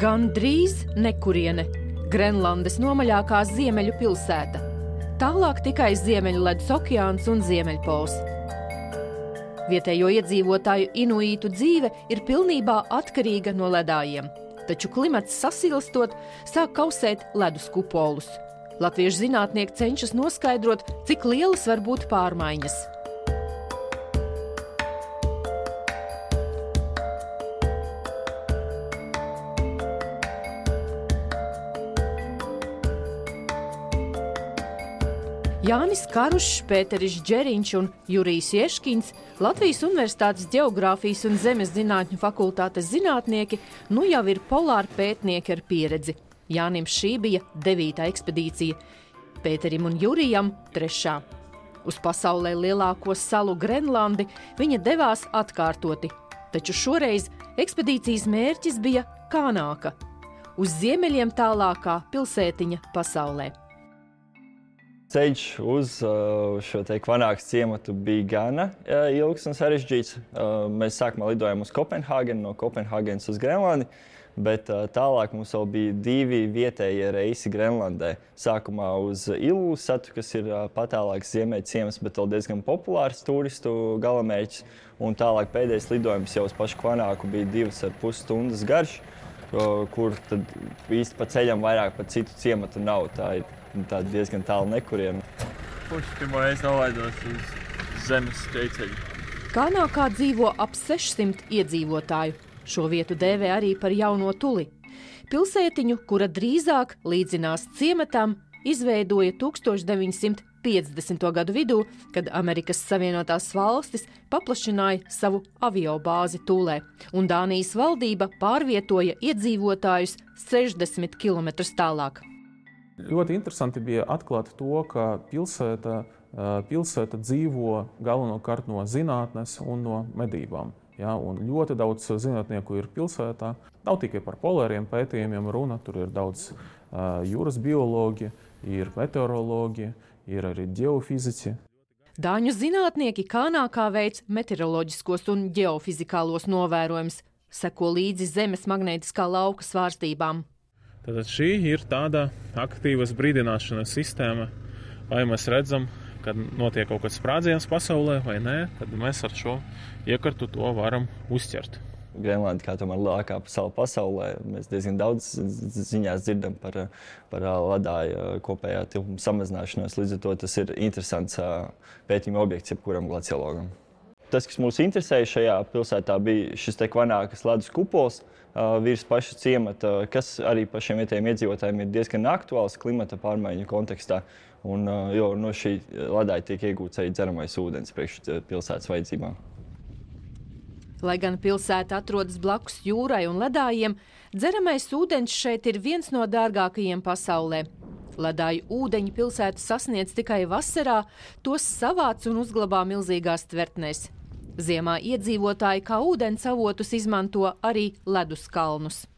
Gandrīz nekuriene. Grenlandes nomaļākā ziemeļu pilsēta. Tālāk tikai Ziemeļu ledus okeāns un Ziemeļpols. Vietējo iedzīvotāju inuītu dzīve ir pilnībā atkarīga no ledājiem. Taču klimats sasilstot, sāk kausēt ledus kupolus. Latviešu zinātnieki cenšas noskaidrot, cik lielas var būt pārmaiņas. Jānis Karušs, Pēteris Džeriņš un Jurijs Ješkins, Latvijas Universitātes Ģeogrāfijas un zemes zinātņu fakultātes zinātnieki, nu jau ir polāri pētnieki ar pieredzi. Jānim šī bija 9. ekspedīcija, Pēterim un Jurijam 3. Uz pasaulē lielāko salu Grenlandi viņa devās atkārtoti, taču šoreiz ekspedīcijas mērķis bija Kanāka, uz ziemeļiem tālākā pilsētiņa pasaulē. Ceļš uz šo Kanākas ciematu bija gana ilgs un sarežģīts. Mēs sākumā lidojām uz Kopenhāgenu, no Kopenhāgenes uz Grenlandi, bet tālāk mums vēl bija 2 vietējie reisi Grenlandē. Sākumā uz Ilulissatu, kas ir patālāks ziemeļu ciems, bet vēl diezgan populārs turistu galamērķis. Un tālāk pēdējais lidojums jau uz pašu Kanāku bija 2,5 stundas garš, kur tad īsti pa ceļam vairāk pa citu ciematu nav. Tā diezgan tālu nekuriena. Pirmo reizi nolaidos uz zemes ceļceļu. Kanākā dzīvo ap 600 iedzīvotāju. Šo vietu dēvē arī par Jauno Tuli. Pilsētiņu, kura drīzāk līdzinās ciematam, izveidoja 1950. gadu vidū, kad Amerikas Savienotās valstis paplašināja savu aviobāzi Tulē, un Dānijas valdība pārvietoja iedzīvotājus 60 km tālāk. Ļoti interesanti bija atklāt to, ka pilsēta dzīvo galvenokārt no zinātnes un no medībām. Ja, un ļoti daudz zinātnieku ir pilsētā. Nav tikai par polāriem pētījumiem runa, tur ir daudz jūras biologi, ir meteorologi, ir arī ģeofiziķi. Dāņu zinātnieki Kanākā veic meteoroloģiskos un ģeofizikālos novērojumus, seko līdzi zemes magnētiskā lauka svārstībām. Tātad šī ir tāda aktīvas brīdināšanas sistēma, vai mēs redzam, kad notiek kaut kāds sprādziens pasaulē vai nē, tad mēs ar šo iekartu to varam uzķert. Grenlanda, kā tomēr lielākā sala pasaulē, mēs diezgan daudz ziņās dzirdam par ledāju kopējā tilpuma samazināšanos, līdz ar to tas ir interesants pētījuma objekts jebkuram glaciologam. Tas, kas mūs interesēja šajā pilsētā, bija šis Kanākas ledus kupols virs paša ciemata, kas arī pašiem vietējiem iedzīvotājiem ir diezgan aktuāls klimata pārmaiņu kontekstā. Un, jo no šī ledāja tiek iegūts arī dzeramais ūdens priekš pilsētas vajadzībām. Lai gan pilsēta atrodas blakus jūrai un ledājiem, dzeramais ūdens šeit ir viens no dārgākajiem pasaulē. Ledāju ūdeņi pilsēta sasniedz tikai vasarā, tos savāc un uzglabā milzīgās tvertnēs. Ziemā iedzīvotāji kā ūdens avotus izmanto arī ledus kalnus.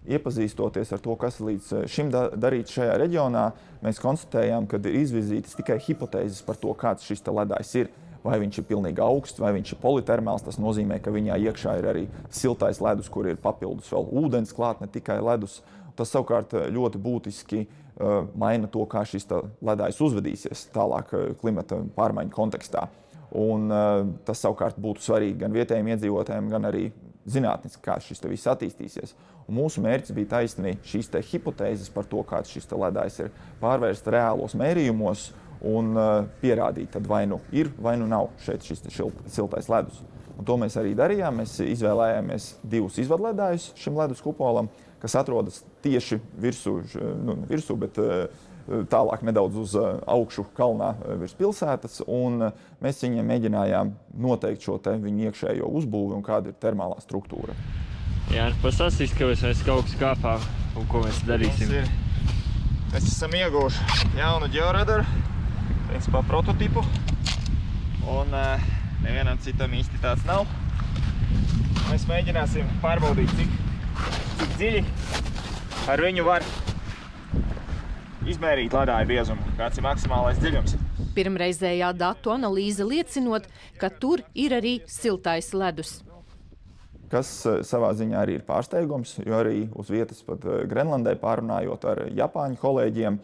Iepazīstoties ar to, kas līdz šim darīts šajā reģionā, mēs konstatējām, ka ir izvirzītas tikai hipotēzes par to, kāds šis ledājs ir. Vai viņš ir pilnīgi augsts, vai viņš ir politermāls, tas nozīmē, ka viņā iekšā ir arī siltais ledus, kur ir papildus vēl ūdens klāt, ne tikai ledus. Tas savukārt ļoti būtiski maina to, kā šis ledājs uzvedīsies tālāk klimata pārmaiņu kontekstā. Un tas savukārt būtu svarīgi gan vietējiem iedzīvotājiem, gan arī zinātniski, kā šis viss attīstīsies. Un mūsu mērķis bija taisnīgi šīs hipotēzes par to, kāds šis ledājs ir, pārvērst reālos mērījumos un pierādīt, tad vai nu ir, vai nu nav šeit šis siltais ledus. Un to mēs arī darījām. Mēs izvēlējāmies 2 izvadledājus šim ledus kupolam, kas atrodas tieši virsū, bet tālāk nedaudz uz augšu kalnā virs pilsētas, un mēs viņiem mēģinājām noteikt šo viņu iekšējo uzbūvi un kāda ir termālā struktūra. Jā, pastāstīs, ka mēs kaut kas kāpā un ko mēs darīsim. Mēs esam ieguvuši jaunu ģeoradaru, principā prototipu, un nevienam citam īsti tāds nav. Mēs mēģināsim pārbaudīt, cik dziļi ar viņu var izmērīt ledāju biezumu, kāds ir maksimālais dziļums. Pirmreizējā datu analīze liecinot, ka tur ir arī siltais ledus. kas savā ziņā arī ir pārsteigums, jo arī uz vietas pat Grenlandē pārunājot ar Japāņu kolēģiem,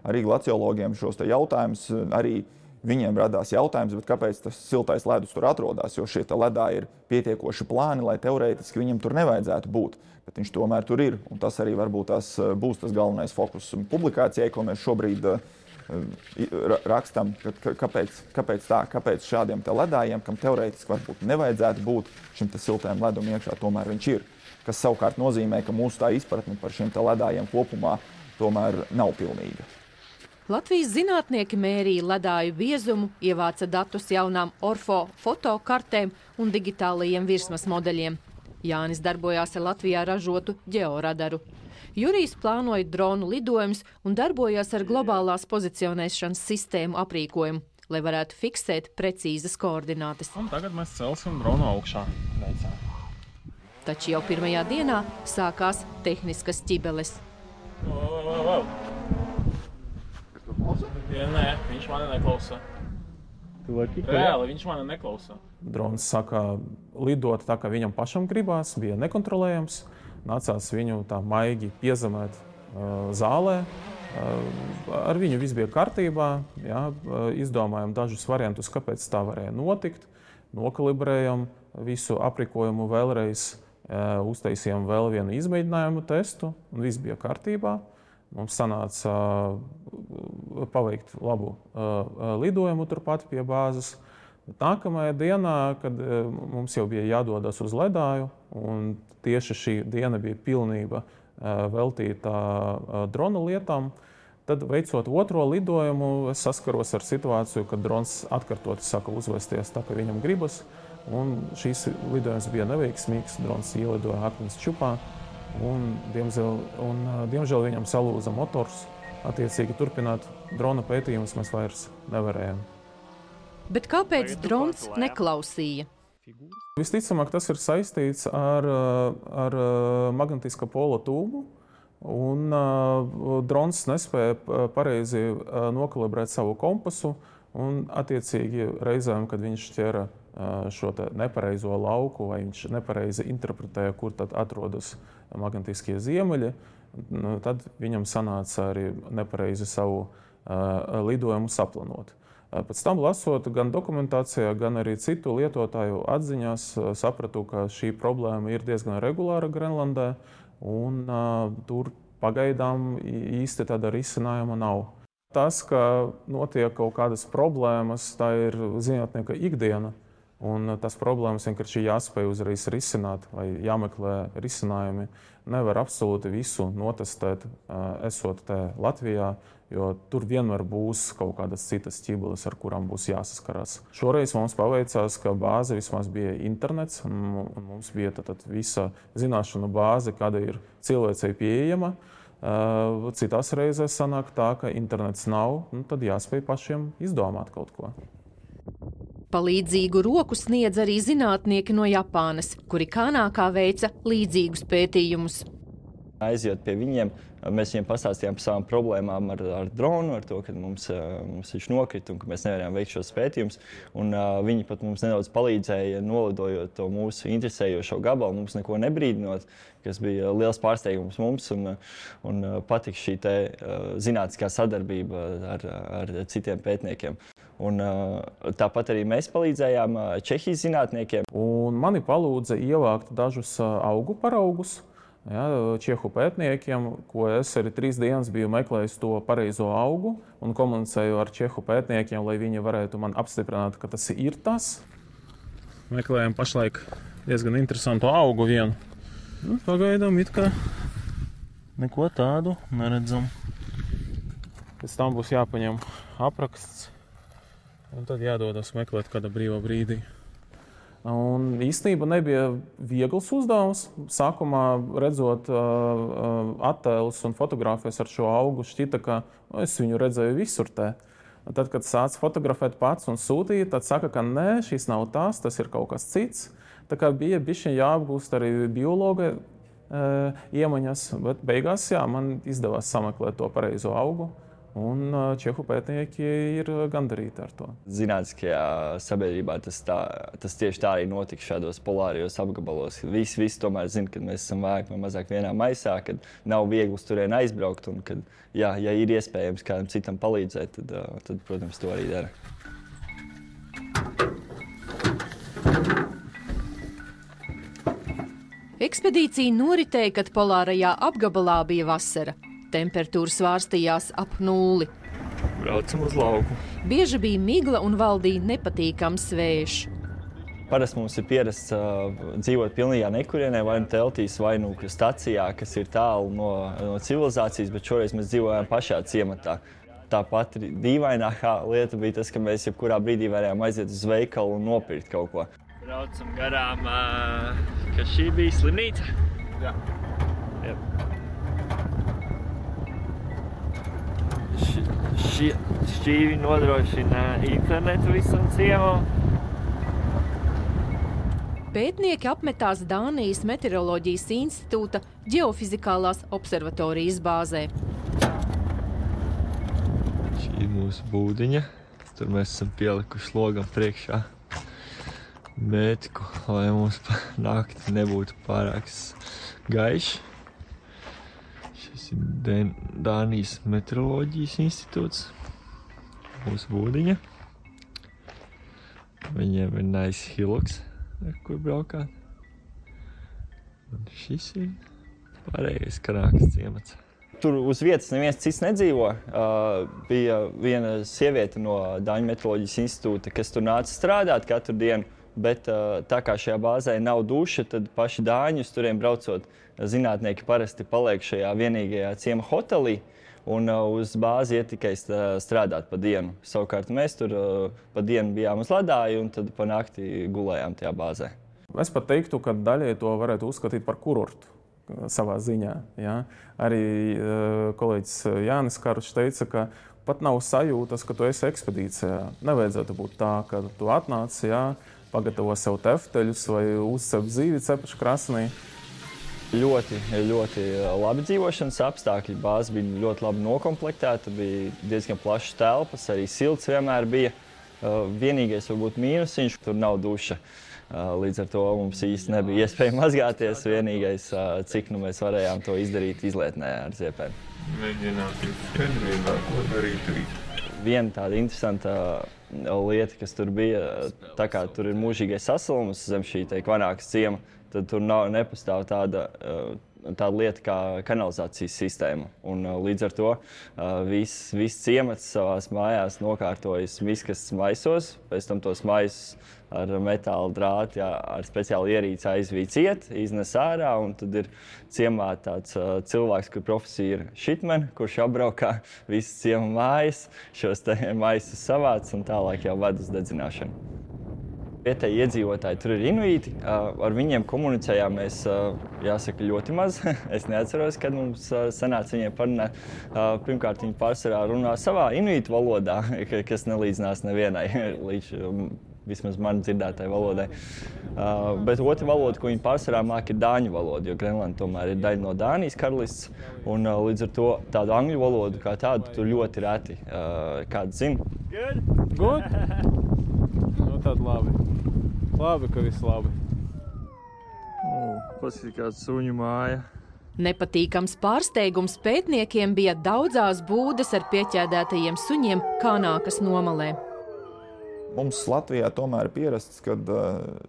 arī glaciologiem šos te jautājumus, arī viņiem radās jautājums, bet kāpēc tas siltais ledus tur atrodas, jo šie ledā ir pietiekoši plāni, lai teorētiski viņam tur nevajadzētu būt, bet viņš tomēr tur ir, un tas arī varbūt būs tas galvenais fokus publikācijai, ko mēs šobrīd rakstam, kāpēc šādiem te ledājiem, kam teorētiski varbūt nevajadzētu būt šim te siltajam ledum iekšā, tomēr viņš ir. Kas savukārt nozīmē, ka mūsu tā izpratne par šiem te ledājiem kopumā tomēr nav pilnīga. Latvijas zinātnieki mērīja ledāju biezumu, ievāca datus jaunām orfo fotokartēm un digitālajiem virsmas modeļiem. Jānis darbojās ar Latvijā ražotu ģeoradaru. Jurijs plānoja dronu lidojumus un darbojās ar globālās pozicionēšanas sistēmu aprīkojumu, lai varētu fiksēt precīzas koordinātes. Un tagad mēs celsim dronu augšā. Veicā. Taču jau pirmajā dienā sākās tehniskas ķibeles. Nē, viņš mani neklausa. Reāli viņš mani neklausa. Drons saka lidot tā, kā viņam pašam gribās, bija nekontrolējams. Nācās viņu tā maigi piezemēt zālē. Ar viņu viss bija kārtībā. Jā, izdomājam dažus variantus, kāpēc tā varēja notikt. Nokalibrējam visu aprīkojumu vēlreiz, uztaisījām vēl vienu izmēģinājumu testu, un viss bija kārtībā. Mums sanāca paveikt labu lidojumu turpat pie bāzes. Nākamajā dienā, kad mums jau bija jādodas uz ledāju, un tieši šī diena bija pilnība veltīta drona lietām, tad veicot otro lidojumu, es saskaros ar situāciju, kad drons atkārtoti saka uzvesties tā, kā viņam gribas, un šīs lidojums bija neveiksmīgs, drons ielidoja akmens čupā, un diemžēl viņam salūza motors. Attiecīgi turpināt drona pētījumus mēs vairs nevarējām. Bet kāpēc drons neklausīja? Visticamāk, tas ir saistīts ar magnetiskā pola tūmu, un drons nespēja pareizi nokalibrēt savu kompasu, un attiecīgi reizēm, kad viņš ķera šo nepareizo lauku, vai viņš nepareizi interpretēja, kur tad atrodas magnetiskie ziemeļi, tad viņam sanāca arī nepareizi savu lidojumu saplanot. Pēc tam lasot gan dokumentācijā, gan arī citu lietotāju atziņās, sapratu, ka šī problēma ir diezgan regulāra Grenlandē, un tur pagaidām īsti tāda risinājuma nav. Tas, ka notiek kaut kādas problēmas, tā ir zinātnieka ikdiena, un tas problēmas vienkārši jāspēj uzreiz risināt vai jāmeklē risinājumi. Nevar absolūti visu notestēt, esot te Latvijā, jo tur vienmēr būs kaut kādas citas ķibeles, ar kurām būs jāsaskarās. Šoreiz mums paveicās, ka bāze vismaz bija internets, un mums bija tad visa zināšanu bāze, kāda ir cilvēcei pieejama. Citās reizēs sanāk tā, ka internets nav, tad jāspēj pašiem izdomāt kaut ko. Palīdzīgu roku sniedz arī zinātnieki no Japānas, kuri Kanākā veica līdzīgus pētījumus. Aiziet pie viņiem, mēs viņiem pastāstījām par savām problēmām ar dronu, ar to, ka mums viņš nokrita un ka mēs nevarējām veikt šos pētījumus. Viņi pat mums nedaudz palīdzēja nolidojot to mūsu interesējošo gabalu, mums neko nebrīdinot, kas bija liels pārsteigums mums un patika šī te zinātniskā sadarbība ar citiem pētniekiem. Tāpat arī mēs palīdzējām Čehijas zinātniekiem. Un mani palūdza ievākt dažus augu paraugus. Čehu pētniekiem, ko es arī 3 dienas biju meklējis to pareizo augu un komunicēju ar čehu pētniekiem, lai viņi varētu man apstiprināt, ka tas ir tas. Meklējam pašlaik diezgan interesantu augu vienu. Pagaidām it kā neko tādu neredzam. Pēc tam būs jāpaņem apraksts. Un tad jādodas meklēt kāda brīva brīdī. Un īstenībā nebija viegls uzdevums. Sākumā redzot attēlus un fotogrāfijas ar šo augu, šķita, ka es viņu redzēju visur te. Tad, kad sāc fotografēt pats un sūtīt, tad saka, ka nē, šis nav tas ir kaut kas cits. Tā kā bija bišķiņ jāapgūst arī biologa iemaņas, bet beigās man izdevās sameklēt to pareizo augu. un čehu pētnieki ir gandarīti ar to. Zinātniskajā sabiedrībā tas tieši tā arī notika šādos polārajos apgabalos. Visi tomēr zina, ka mēs esam vairāk vai mazāk vienā maisā, kad nav viegli uz turieni aizbraukt, un kad, ja ir iespējams kādam citam palīdzēt, tad protams, to arī dara. Ekspedīcija noritēja, kad polārajā apgabalā bija vasara. Temperatūra svārstījās ap 0. Braucam uz lauku. Bieži bija migla un valdīja nepatīkams vējš. Parasti mums ir pierasts dzīvot pilnīgā nekurienē, vai nu teltīs, vai nu stacijā, kas ir tālu no civilizācijas, bet šoreiz mēs dzīvojām pašā ciematā. Tāpat dīvainākā lieta bija tas, ka mēs jebkurā brīdī varējām aiziet uz veikalu un nopirkt kaut ko. Braucam garām, ka šī bija slimnīca. Jā. Šķīvi nodrošina internetu visam ciemam. Pētnieki apmetās Dānijas Meteoroloģijas institūta ģeofizikālās observatorijas bāzē. Šī ir mūsu būdiņa. Tur mēs esam pielikuši logam priekšā mētiku, lai mums nakti nebūtu pārāk gaiši. Šis ir Dānijas Meteoroloģijas institūts, mūsu būdiņa. Viņiem ir nice hillocks, ar kur braukāt. Un šis ir pārējais Kanākas ciemats. Tur uz vietas neviens cits nedzīvo. Bija viena sieviete no Dāņu Meteoroloģijas institūta, kas tur nāca strādāt katru dienu. Bet tā kā šajā bāzē nav duša, tad paši dāņi uz turiem braucot, zinātnieki parasti paliek šajā vienīgajā ciema hotelī un uz bāzi iet tikai strādāt pa dienu. Savukārt mēs tur pa dienu bijām uz ledāju un tad pa nakti gulējām tajā bāzē. Es pat teiktu, ka daļai to varētu uzskatīt par kurortu savā ziņā. Ja? Arī kolēģis Jānis Karušs teica, ka pat nav sajūtas, ka tu esi ekspedīcijā. Nevajadzētu būt tā, ka tu atnāc, pagatavo sev tefteļus vai uzcep zīvi cepašu krasnī. Ļoti labi dzīvošanas apstākļi. Bāze bija ļoti labi nokomplektēta, bija diezgan plašas telpas, arī silts vienmēr bija. Vienīgais varbūt mīnusiņš, tur nav duša. Līdz ar to mums īsti nebija iespēja mazgāties. Vienīgais, cik mēs varējām to izdarīt izlietnē ar ziepēm. Mēģināt skaidrībā, ko darīt rīt. Viena tāda interesanta lieta, kas tur bija, tā kā tur ir mūžīgais sasilums zem šī Kvanākas ciema, tad tur nepastāv tāda lieta kā kanalizācijas sistēma. Un līdz ar to viss ciemats savās mājās nokārtojas miskastes maisos, pēc tam tos maisus ar metāla drāti, ar speciālu ierīci aizvīd ciet, iznes ārā, un tad ir ciemā tāds cilvēks, kur profesija ir šitmen, kurš apbraukā visas ciema mājas, šos maisus savāc un tālāk jau ved uz dedzināšanu. Vietēji iedzīvotāji tur ir inuīti, ar viņiem komunicējām mēs, jāsaka, ļoti maz. Es neatceros, kad mums sanāca viņiem parunāt. Pirmkārt, viņi pārsvarā runā savā inuītu valodā, kas nelīdzinās nevienai līdz vismaz man dzirdētai valodai. Bet otra valoda, ko viņi pārsvarā māk, ir dāņu valoda, jo Grenlanda tomēr ir daļa no Dānijas karalists, un līdz ar to tādu angļu valodu kā tādu tur ļoti reti kāds zina. Good? Nu tad labi. Labi, ka viss labi. Paskatīt, kāda suņu māja. Nepatīkams pārsteigums pētniekiem bija daudzās būdas ar pieķēdētajiem suņiem Kanākas nomalē. Mums Latvijā tomēr ir pierasts, ka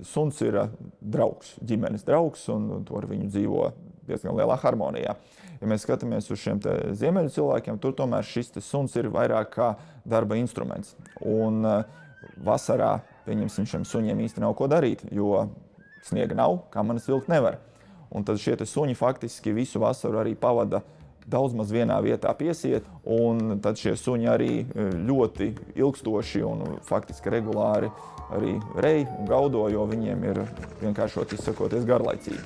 suns ir draugs, ģimenes draugs, un to ar viņu dzīvo diezgan lielā harmonijā. Ja mēs skatāmies uz šiem ziemeļu cilvēkiem, tur tomēr šis suns ir vairāk kā darba instruments. Un vasarā, pieņemsim, šiem suņiem īsti nav ko darīt, jo sniega nav, kamanas vilkt nevar. Un tad šie suņi faktiski visu vasaru arī pavada daudz maz vienā vietā piesiet, un tad šie suņi arī ļoti ilgstoši un faktiski regulāri arī rej un gaudo, jo viņiem ir vienkāršot izsakoties garlaicīgi.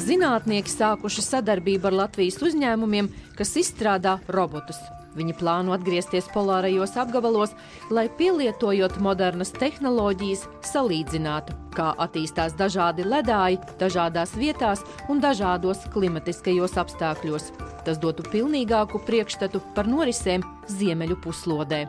Zinātnieki sākuši sadarbību ar Latvijas uzņēmumiem, kas izstrādā robotus. Viņi plāno atgriezties polārajos apgabalos, lai pielietojot modernas tehnoloģijas salīdzinātu, kā attīstās dažādi ledāji, dažādās vietās un dažādos klimatiskajos apstākļos. Tas dotu pilnīgāku priekšstatu par norisēm Ziemeļu puslodē.